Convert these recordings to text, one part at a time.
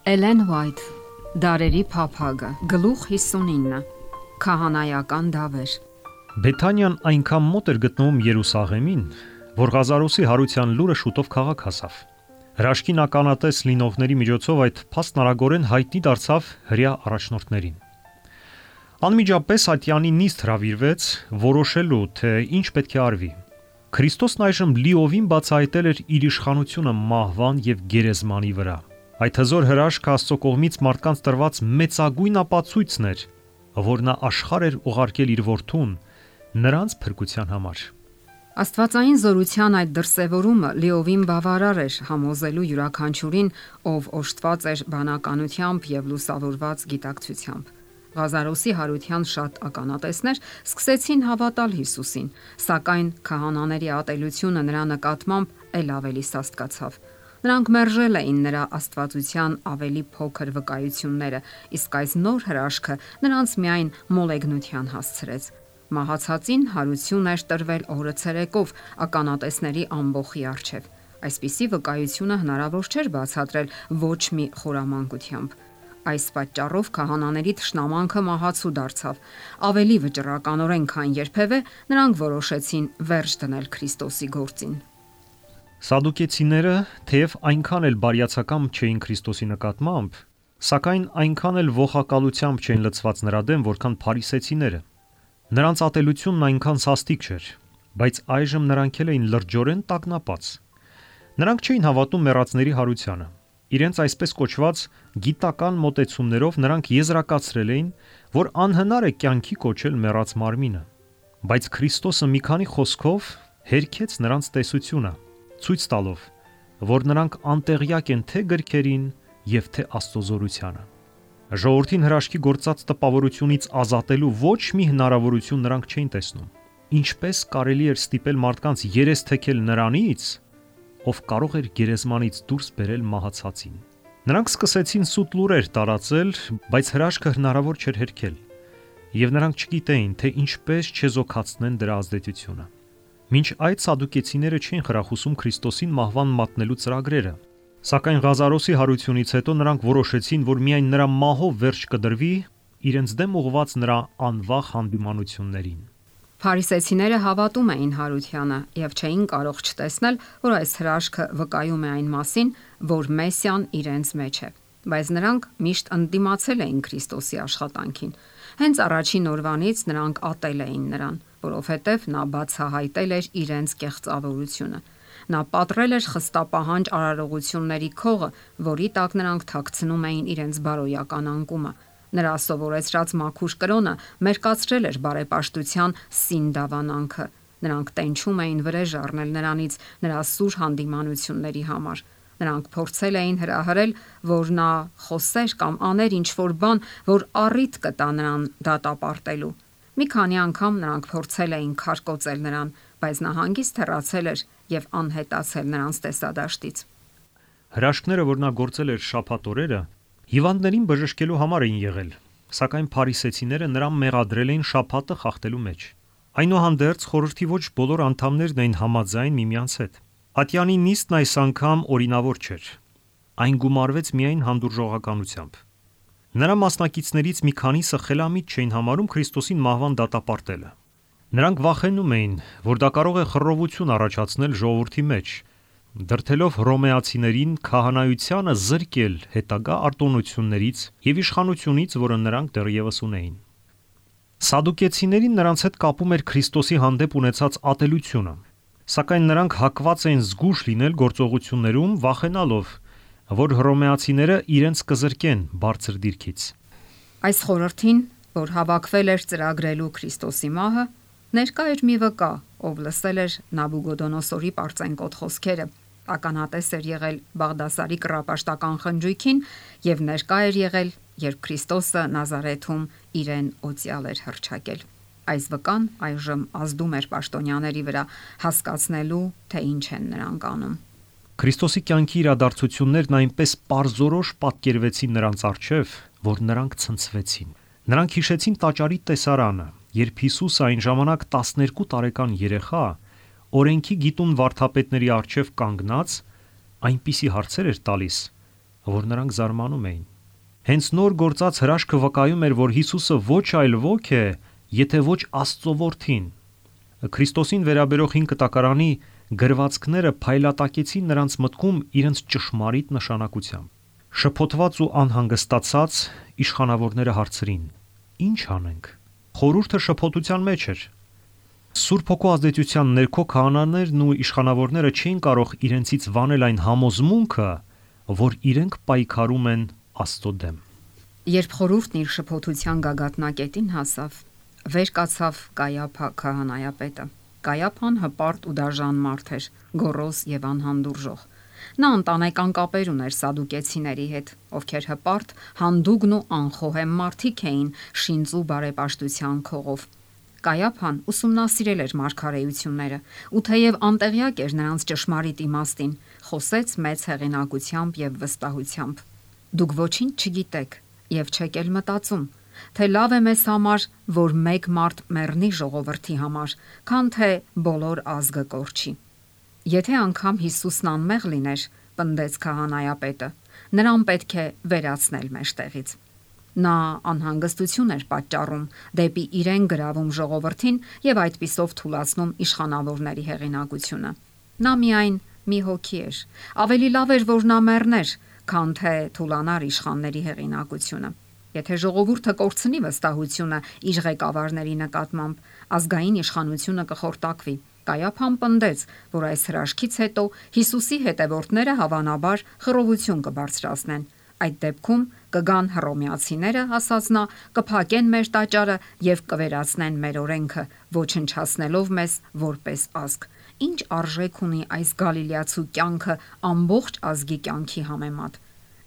Էլեն Ուայթ, Դարերի փափագը, գլուխ 59, Քահանայական դավեր։ Բեթանիան այնքան մոտ էր գտնվում Երուսաղեմին, որ Ղազարոսի հարության լուրը շուտով քաղաք հասավ։ Հրաշքին ականատես լինողների միջոցով այդ փաստն արագորեն հայտնի դարձավ հրեա առաջնորդներին։ Անմիջապես ատյանի նիստ հրավիրվեց որոշելու, թե ինչ պետք է արվի։ Քրիստոսն այժմ լիովին բացահայտել էր իր իշխանությունը մահվան եւ գերեզմանի վրա։ Այդ հզոր հրաշքը Աստծո կողմից մարդկանց տրված մեծագույն ապացույցն էր, որ նա աշխարհ էր ուղարկել իր որդուն նրանց փրկության համար։ Աստվածային զորության այդ դրսևորումը լիովին բավարար էր համոզելու յուրաքանչյուրին, ով օժտված էր բանականությամբ եւ լուսավորված գիտակցությամբ։ Ղազարոսի հարության շատ ականատեսներ սկսեցին հավատալ Հիսուսին, սակայն քահանաների ատելությունը նրա նկատմամբ ել ավելի սաստկացավ։ Նրանք մերժել էին նրա աստվածության ավելի փոքր վկայությունները, իսկ այս նոր հրաշքը նրանց միայն մոլեգնության հասցրեց։ Մահացածին հարություն էր տրվել օրը ցերեկով ականատեսների ամբոխի առջև։ Այսպիսի վկայությունը հնարավոր չէր բացատրել ոչ մի խորամանկությամբ։ Այս պատճառով քահանաների թշնամանքը մահացու դարձավ։ Ավելի վճռականորեն, քան երբևէ, նրանք որոշեցին վերջ դնել Քրիստոսի գործին։ Սադուկեցիները, թեև այնքան էլ բարյացակամ չէին Քրիստոսի նկատմամբ, սակայն այնքան էլ ողակալությամբ չէին լցված նրա դեմ, որքան փարիսեցիները։ Նրանց ատելությունն այնքան սաստիկ չէր, բայց այժմ նրանք էին լրջորեն տագնապած։ Նրանք չէին հավատում մեռածների հարությանը։ Իրենց այսպես կոչված գիտական մոտեցումներով նրանք եզրակացրել էին, որ անհնար է կյանքի կոչել մեռած մարմինը։ Բայց Քրիստոսը մի քանի խոսքով հերքեց նրանց տեսությունը, ցույց տալով, որ նրանք անտեղյակ են թե գրքերին եւ թե Աստծո զորությանը։ Ժողովրդին հրաշքի գործած տպավորությունից ազատելու ոչ մի հնարավորություն նրանք չէին տեսնում։ Ինչպես կարելի էր ստիպել մարդկանց երես թեքել նրանից, ով կարող էր գերեզմանից դուրս բերել մահացածին։ Նրանք սկսեցին սուտ լուրեր տարածել, բայց հրաշքը հնարավոր չէր հերքել, եւ նրանք չգիտեին, թե ինչպես չեզոքացնեն դրա ազդեցությունը։ Մինչ այդ սադուկեցիները չէին խրախուսում Քրիստոսին մահվան մատնելու ծրագրերը, սակայն Ղազարոսի հարությունից հետո նրանք որոշեցին, որ միայն նրա մահով վերջ կդրվի իրենց դեմ ուղված նրա անվախ հանդիմանություններին։ Փարիսեցիները հավատում էին հարությանը եւ չէին կարող չտեսնել, որ այս հրաշքը վկայում է այն մասին, որ Մեսիան իրենց մեջ է։ Բայց նրանք միշտ ընդդիմացել էին Քրիստոսի աշխատանքին։ Հենց առաջին օրվանից նրանք ատել էին նրան, որովհետև նա բացահայտել էր իրենց կեղծավորությունը։ Նա պատռել էր խստապահանջ արարողությունների քողը, որի տակ նրանք թաքցնում էին իրենց բարոյական անկումը։ Նրա սովորեցրած մաքուր կրոնը մերկացրել էր բարեպաշտության սին դավանանքը։ Նրանք տենչում էին վրեժ առնել նրանից նրա սուր հանդիմանությունների համար։ Նրանք փորձել էին հրահրել, որ նա խոսեր կամ աներ ինչ-որ բան, որ առիթ կտա նրան դատապարտելու։ Մի քանի անգամ նրանք փորձել էին քարկոծել նրան, բայց նա հանգիստ հեռացել էր եւ անհետացել նրանց տեսադաշտից։ Հրաշքները, որ նա գործել էր շաբաթ օրերը, հիվանդներին բժշկելու համար էին եղել, սակայն փարիսեցիները նրան մեղադրել էին շաբաթը խախտելու մեջ։ Այնուհանդերձ խորհրդի ոչ բոլոր անդամներն էին համաձայն միմյանց հետ։ Ատյանի նիստն այս անգամ օրինավոր չէր։ Այն գումարվեց միայն հանդուրժողականությամբ։ Նրա մասնակիցներից մի քանիսը խելամիտ չէին համարում Քրիստոսին մահվան դատապարտելը։ Նրանք վախենում էին, որ դա կարող է խռովություն առաջացնել ժողովրդի մեջ, դրդելով հռոմեացիներին քահանայությանը զրկել հետագա արտոնություններից եւ իշխանությունից, որը նրանք դեռևս ունեին։ Սադուկեցիներին նրանց հետ կապում էր Քրիստոսի հանդեպ ունեցած ատելությունը, սակայն նրանք հակված էին զգույշ լինել գործողություններում, վախենալով, որ հռոմեացիները իրենց կզրկեն բարձր դիրքից։ Այս խորհրդին, որ հավաքվել էր ծրագրելու Քրիստոսի մահը, ներկա էր մի վկա, ով լսել էր Նաբուգոդոնոսորի պարծենկոտ խոսքերը, ականատես էր եղել Բաղդասարի կռապաշտական խնջույքին եւ ներկա էր եղել, երբ Քրիստոսը Նազարեթում իրեն օծյալ էր հռչակել։ Այս վկան այժմ ազդում էր պաշտոնյաների վրա, հասկացնելու, թե ինչ են նրանք անում։ Քրիստոսի կյանքի իրադարձություններն այնպես պարզորոշ պատկերվեցին նրանց առջև, որ նրանք ցնցվեցին։ Նրանք հիշեցին տաճարի տեսարանը, երբ Հիսուսը այն ժամանակ 12 տարեկան երեխա օրենքի գիտուն վարդապետների առջև կանգնած այնպիսի հարցեր էր տալիս, որ նրանք զարմանում էին։ Հենց նոր գործած հրաշքը վկայում էր, որ Հիսուսը ոչ այլ ոք է, եթե ոչ Աստծո որդին։ Քրիստոսին վերաբերող 5 կտակարանի գրվածքները փայլատակեցին նրանց մտքում իրենց ճշմարիտ նշանակությամբ։ Շփոթված ու անհանգստացած իշխանավորները հարցրին. «Ինչ անենք»։ Խորհուրդը շփոթության մեջ էր։ Սուրբ Հոգու ազդեցության ներքո քահանաներն ու իշխանավորները չէին կարող իրենցից վանել այն համոզմունքը, որ իրենք պայքարում են Աստծո դեմ։ Երբ խորհուրդն իր շփոթության գագաթնակետին հասավ, վեր կացավ Կայափա քահանայապետը։ Կայափան հպարտ ու դաժան մարդ էր, գոռոզ եւ անհանդուրժող։ Նա ընտանեկան կապեր ուներ սադուկեցիների հետ, ովքեր հպարտ, հանդուգն ու անխոհեմ մարդիկ էին շինծու բարեպաշտության քողով։ Կայափան ուսումնասիրել էր մարգարեությունները, ու թեև անտեղյակ էր նրանց ճշմարիտ իմաստին, խոսեց մեծ հեղինակությամբ եւ վստահությամբ։ Դուք ոչինչ չգիտեք եւ չեք էլ մտածում, թե լավ է մեզ համար, որ մեկ մարդ մեռնի ժողովրդի համար, քան թե բոլոր ազգը կորչի։ Եթե անգամ Հիսուսն անմեղ լիներ, պնդեց քահանայապետը, նրան պետք է վերացնել մեջտեղից։ Նա անհանգստություն էր պատճառում, դեպի իրեն գրավում ժողովրդին եւ այդպիսով թուլացնում իշխանավորների հեղինակությունը։ Նա միայն մի հոգի էր։ Ավելի լավ էր, որ նա մեռներ, քան թե թուլանար իշխանների հեղինակությունը։ Եթե ժողովուրդը կորցնի վստահությունը իր ղեկավարների նկատմամբ, ազգային իշխանությունը կխորտակվի։ Կայափան պնդեց, որ այս հրաշքից հետո Հիսուսի հետևորդները հավանաբար խռովություն կբարձրացնեն։ Այդ դեպքում կգան հռոմեացիները, ասաց նա, կփակեն մեր տաճարը եւ կվերացնեն մեր օրենքը, ոչնչացնելով մեզ որպես ազգ։ Ինչ արժեք ունի այս գալիլեացու կյանքը ամբողջ ազգի կյանքի համեմատ։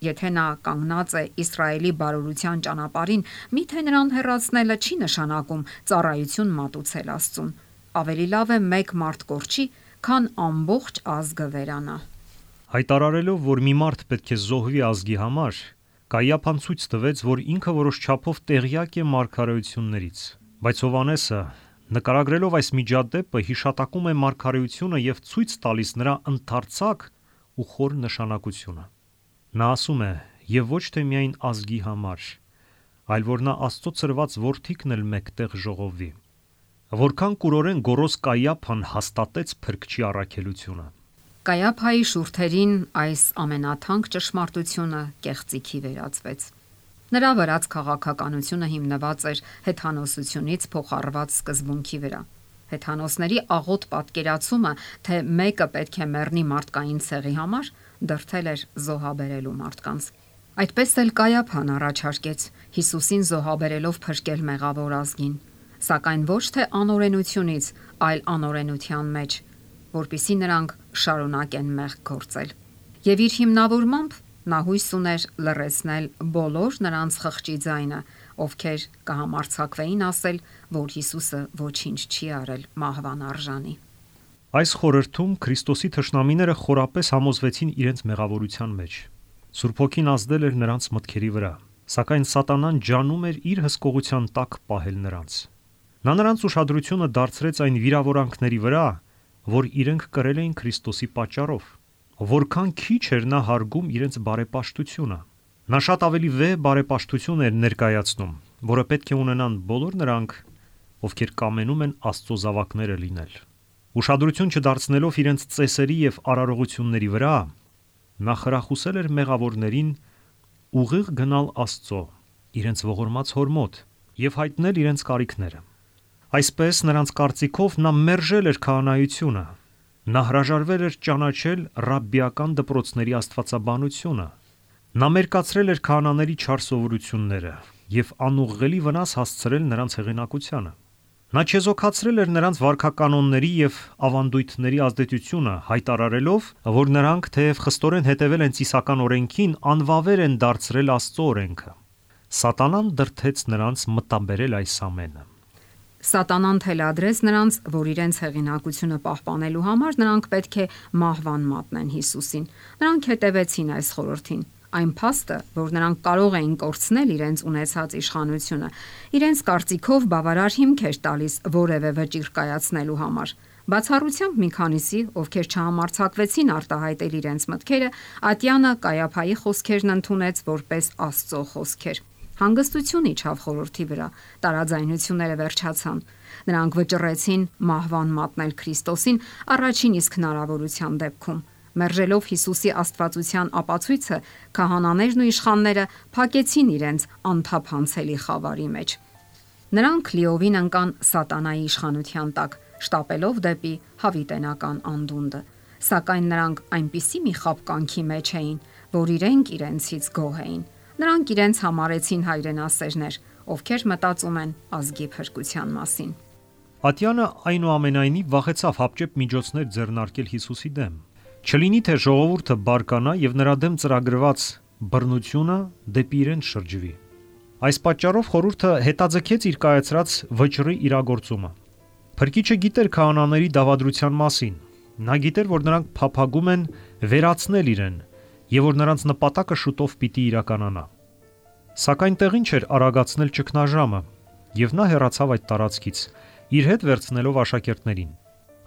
Եթե նա կանգնած է Իսրայելի բարօրության ճանապարհին, միթե նրան հեռացնելը չի նշանակում ծառայություն մատուցել Աստծուն։ Ավելի լավ է մեկ մարդ կորչի, քան ամբողջ ազգը վերանա։ Հայտարարելով, որ մի մարդ պետք է զոհվի ազգի համար, Կայափան ցույց տվեց, որ ինքը որոշ չափով տեղյակ է մարգարեություններից։ Բայց Հովհաննեսը, նկարագրելով այս միջադեպը, հիշատակում է մարգարեությունը եւ ցույց տալիս նրա ընդարձակ ու խոր նշանակությունը։ Նա ասում է. «Եվ ոչ թե միայն ազգի համար, այլ որ նա Աստծո ծրված որդիքն էլ մեկտեղ ժողովվի»։ Որքան կուրորեն գոռոզ Կայափան հաստատեց Փրկչի առաքելությունը։ Կայափայի շուրթերին այս ամենաթանկ ճշմարտությունը կեղծիքի վերածվեց։ Նրա վրաց քաղաքականությունը հիմնված էր հեթանոսությունից փոխառված սկզբունքի վրա։ Հեթանոսների աղոտ պատկերացումը, թե մեկը պետք է մեռնի մարդկային ցեղի համար, դրդել էր զոհաբերելու մարդկանց։ Այդպես էլ Կայափան առաջարկեց Հիսուսին զոհաբերելով փրկել մեղավոր ազգին, սակայն ոչ թե անօրենությունից, այլ անօրենության մեջ, որpիսի նրանք շարունակեն մեղք գործել։ Եվ իր հիմնավորմամբ նա հույս ուներ լռեցնել բոլոր նրանց խղճի ձայնը, ովքեր կհամարձակվեին ասել, որ Հիսուսը ոչինչ չի արել մահվան արժանի։ Այս խորհրդում Քրիստոսի թշնամիները խորապես համոզվեցին իրենց մեղավորության մեջ։ Սուրբ Հոգին ազդել էր նրանց մտքերի վրա, սակայն Սատանան ջանում էր իր հսկողության տակ պահել նրանց։ Նա նրանց ուշադրությունը դարձրեց այն վիրավորանքների վրա, որ իրենք կրել էին Քրիստոսի պատճառով։ Որքան քիչ էր նա հարգում իրենց բարեպաշտությունը։ Նա շատ ավելի վեհ բարեպաշտություն էր ներկայացնում, որը պետք է ունենան բոլոր նրանք, ովքեր կամենում են Աստծո զավակները լինել։ Ուշադրություն չդարձնելով իրենց ծեսերի եւ արարողությունների վրա, նա խրախուսել էր մեղավորներին ուղիղ գնալ Աստծո, իրենց ողորմած հոր մոտ եւ հայտնել իրենց կարիքները։ Այսպես նրանց կարծիքով նա մերժել էր քահանայությունը։ Նա հրաժարվել էր ճանաչել ռաբբիական դպրոցների աստվածաբանությունը։ Նա մերկացրել էր քահանաների չար սովորությունները եւ անուղղելի վնաս հասցրել նրանց հեղինակությանը։ Նա չեզոքացրել էր նրանց վարքականոնների եւ ավանդույթների ազդեցությունը, հայտարարելով, որ նրանք թեև խստորեն հետևել են ծիսական օրենքին, անվավեր են դարձրել Աստծո օրենքը։ Սատանան դրդեց նրանց մտաբերել այս ամենը։ Սատանան թելադրեց նրանց, որ իրենց հեղինակությունը պահպանելու համար նրանք պետք է մահվան մատնեն Հիսուսին։ Նրանք հետևեցին այս խորհրդին։ Այն փաստը, որ նրանք կարող էին կորցնել իրենց ունեցած իշխանությունը, իրենց կարծիքով բավարար հիմք էր տալիս որևէ վճիռ կայացնելու համար, Բացառությամբ մի քանիսի, ովքեր չհամարձակվեցին արտահայտել իրենց մտքերը, Ատյանը Կայափայի խոսքերն ընդունեց որպես Աստծո խոսքեր։ Հանգստություն իջավ խորհրդի վրա, տարաձայնությունները վերջացան։ Նրանք վճռեցին մահվան մատնել Քրիստոսին առաջին իսկ հնարավորության դեպքում։ Մերժելով Հիսուսի աստվածության ապացույցը, քահանաներն ու իշխանները փակեցին իրենց անթափանցելի խավարի մեջ։ Նրանք լիովին ընկան սատանայի իշխանության տակ, շտապելով դեպի հավիտենական անդունդը։ Սակայն նրանք այնպիսի մի խաբկանքի մեջ էին, որ իրենցից գոհ էին։ Նրանք իրենց համարեցին հայրենասերներ, ովքեր մտածում են ազգի փրկության մասին։ Ատյանը այնուամենայնիվ վախեցավ հապճեպ միջոցներ ձեռնարկել Հիսուսի դեմ։ Չլինի թե ժողովուրդը բարկանա եւ նրա դեմ ծրագրված բռնությունը դեպի իրեն շրջվի։ Այս պատճառով խորհուրդը հետաձգեց իր կայացրած վճռի իրագործումը։ Փրկիչը գիտեր քահանաների դավադրության մասին։ Նա գիտեր, որ նրանք փափագում են վերացնել իրեն եւ որ նրանց նպատակը շուտով պիտի իրականանա։ Սակայն տեղին չէր արագացնել ճգնաժամը, եւ նա հեռացավ այդ տարածքից, իր հետ վերցնելով աշակերտներին։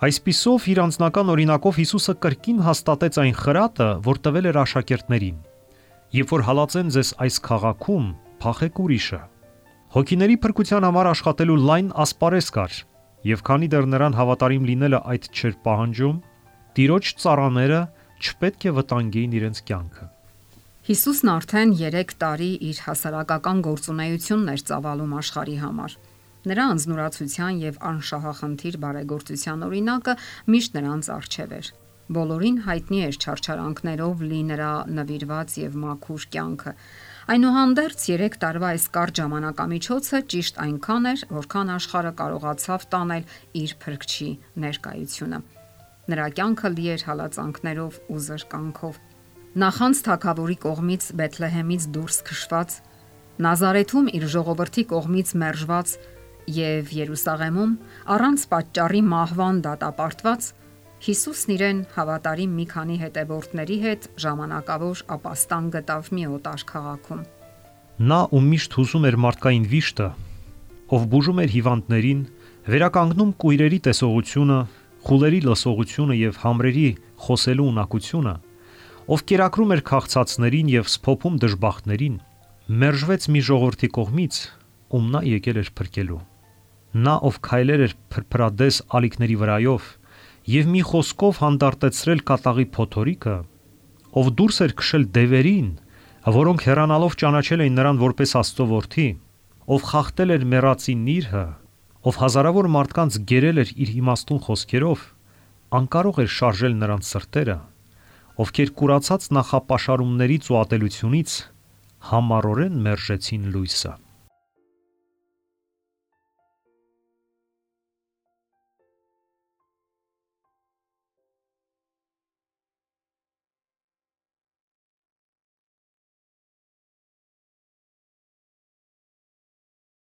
Այսպիսով իր անձնական օրինակով Հիսուսը կրկին հաստատեց այն խրատը, որ տվել էր աշակերտներին. «Երբ որ հալածեն ձեզ այս քաղաքում, փախեք ուրիշը»։ Հոգիների փրկության համար աշխատելու լայն ասպարեզ կար, եւ քանի դեռ նրան հավատարիմ լինելը այդ չէր պահանջում, Տիրոջ ծառաները չպետք է վտանգեին իրենց կյանքը։ Հիսուսն արդեն 3 տարի իր հասարակական գործունեությունն էր ծավալում աշխարհի համար։ Նրա անձնուրացության եւ անշահախնդիր բարեգործության օրինակը միշտ նրանց առջև էր։ Բոլորին հայտնի էր չարչարանքներով լի նրա նվիրված եւ մաքուր կյանքը։ Այնուհանդերձ 3 տարվա այս կարճ ժամանակամիջոցը ճիշտ այնքան էր, որքան աշխարհը կարողացավ տանել իր փրկչի ներկայությունը։ Նրա կյանքը լի էր հալածանքներով ու զրկանքով։ Նախանց թագավորի կողմից Բեթլեհեմից դուրս քշված, Նազարեթում իր ժողովրդի կողմից մերժված եւ Երուսաղեմում առանց պատճառի մահվան դատապարտված, Հիսուսն իրեն հավատարիմ մի քանի հետևորդների հետ ժամանակավոր ապաստան գտավ մի օտար քաղաքում։ Նա ում միշտ հուզում էր մարդկային վիշտը, ով բուժում էր հիվանդներին, վերականգնում կույրերի տեսողությունը, խուլերի լսողությունը եւ համրերի խոսելու ունակությունը, ով կերակրում էր քաղցածներին եւ սփոփում դժբախտներին, մերժվեց մի ժողովրդի կողմից, ում նա եկել էր փրկելու։ Նա, ով քայլեր էր փրփրադես ալիքների վրայով եւ մի խոսքով հանդարտեցրել կատաղի փոթորիկը, ով դուրս էր քշել դևերին, որոնք հեռանալով ճանաչել էին նրան որպես Աստծո որդի, ով խախտել էր մեռածի նիրհը, ով հազարավոր մարդկանց գերել էր իր իմաստուն խոսքերով, անկարող էր շարժել նրանց սրտերը, ովքեր կուրացած նախապաշարումներից ու ատելությունից համառորեն մերժեցին լույսը։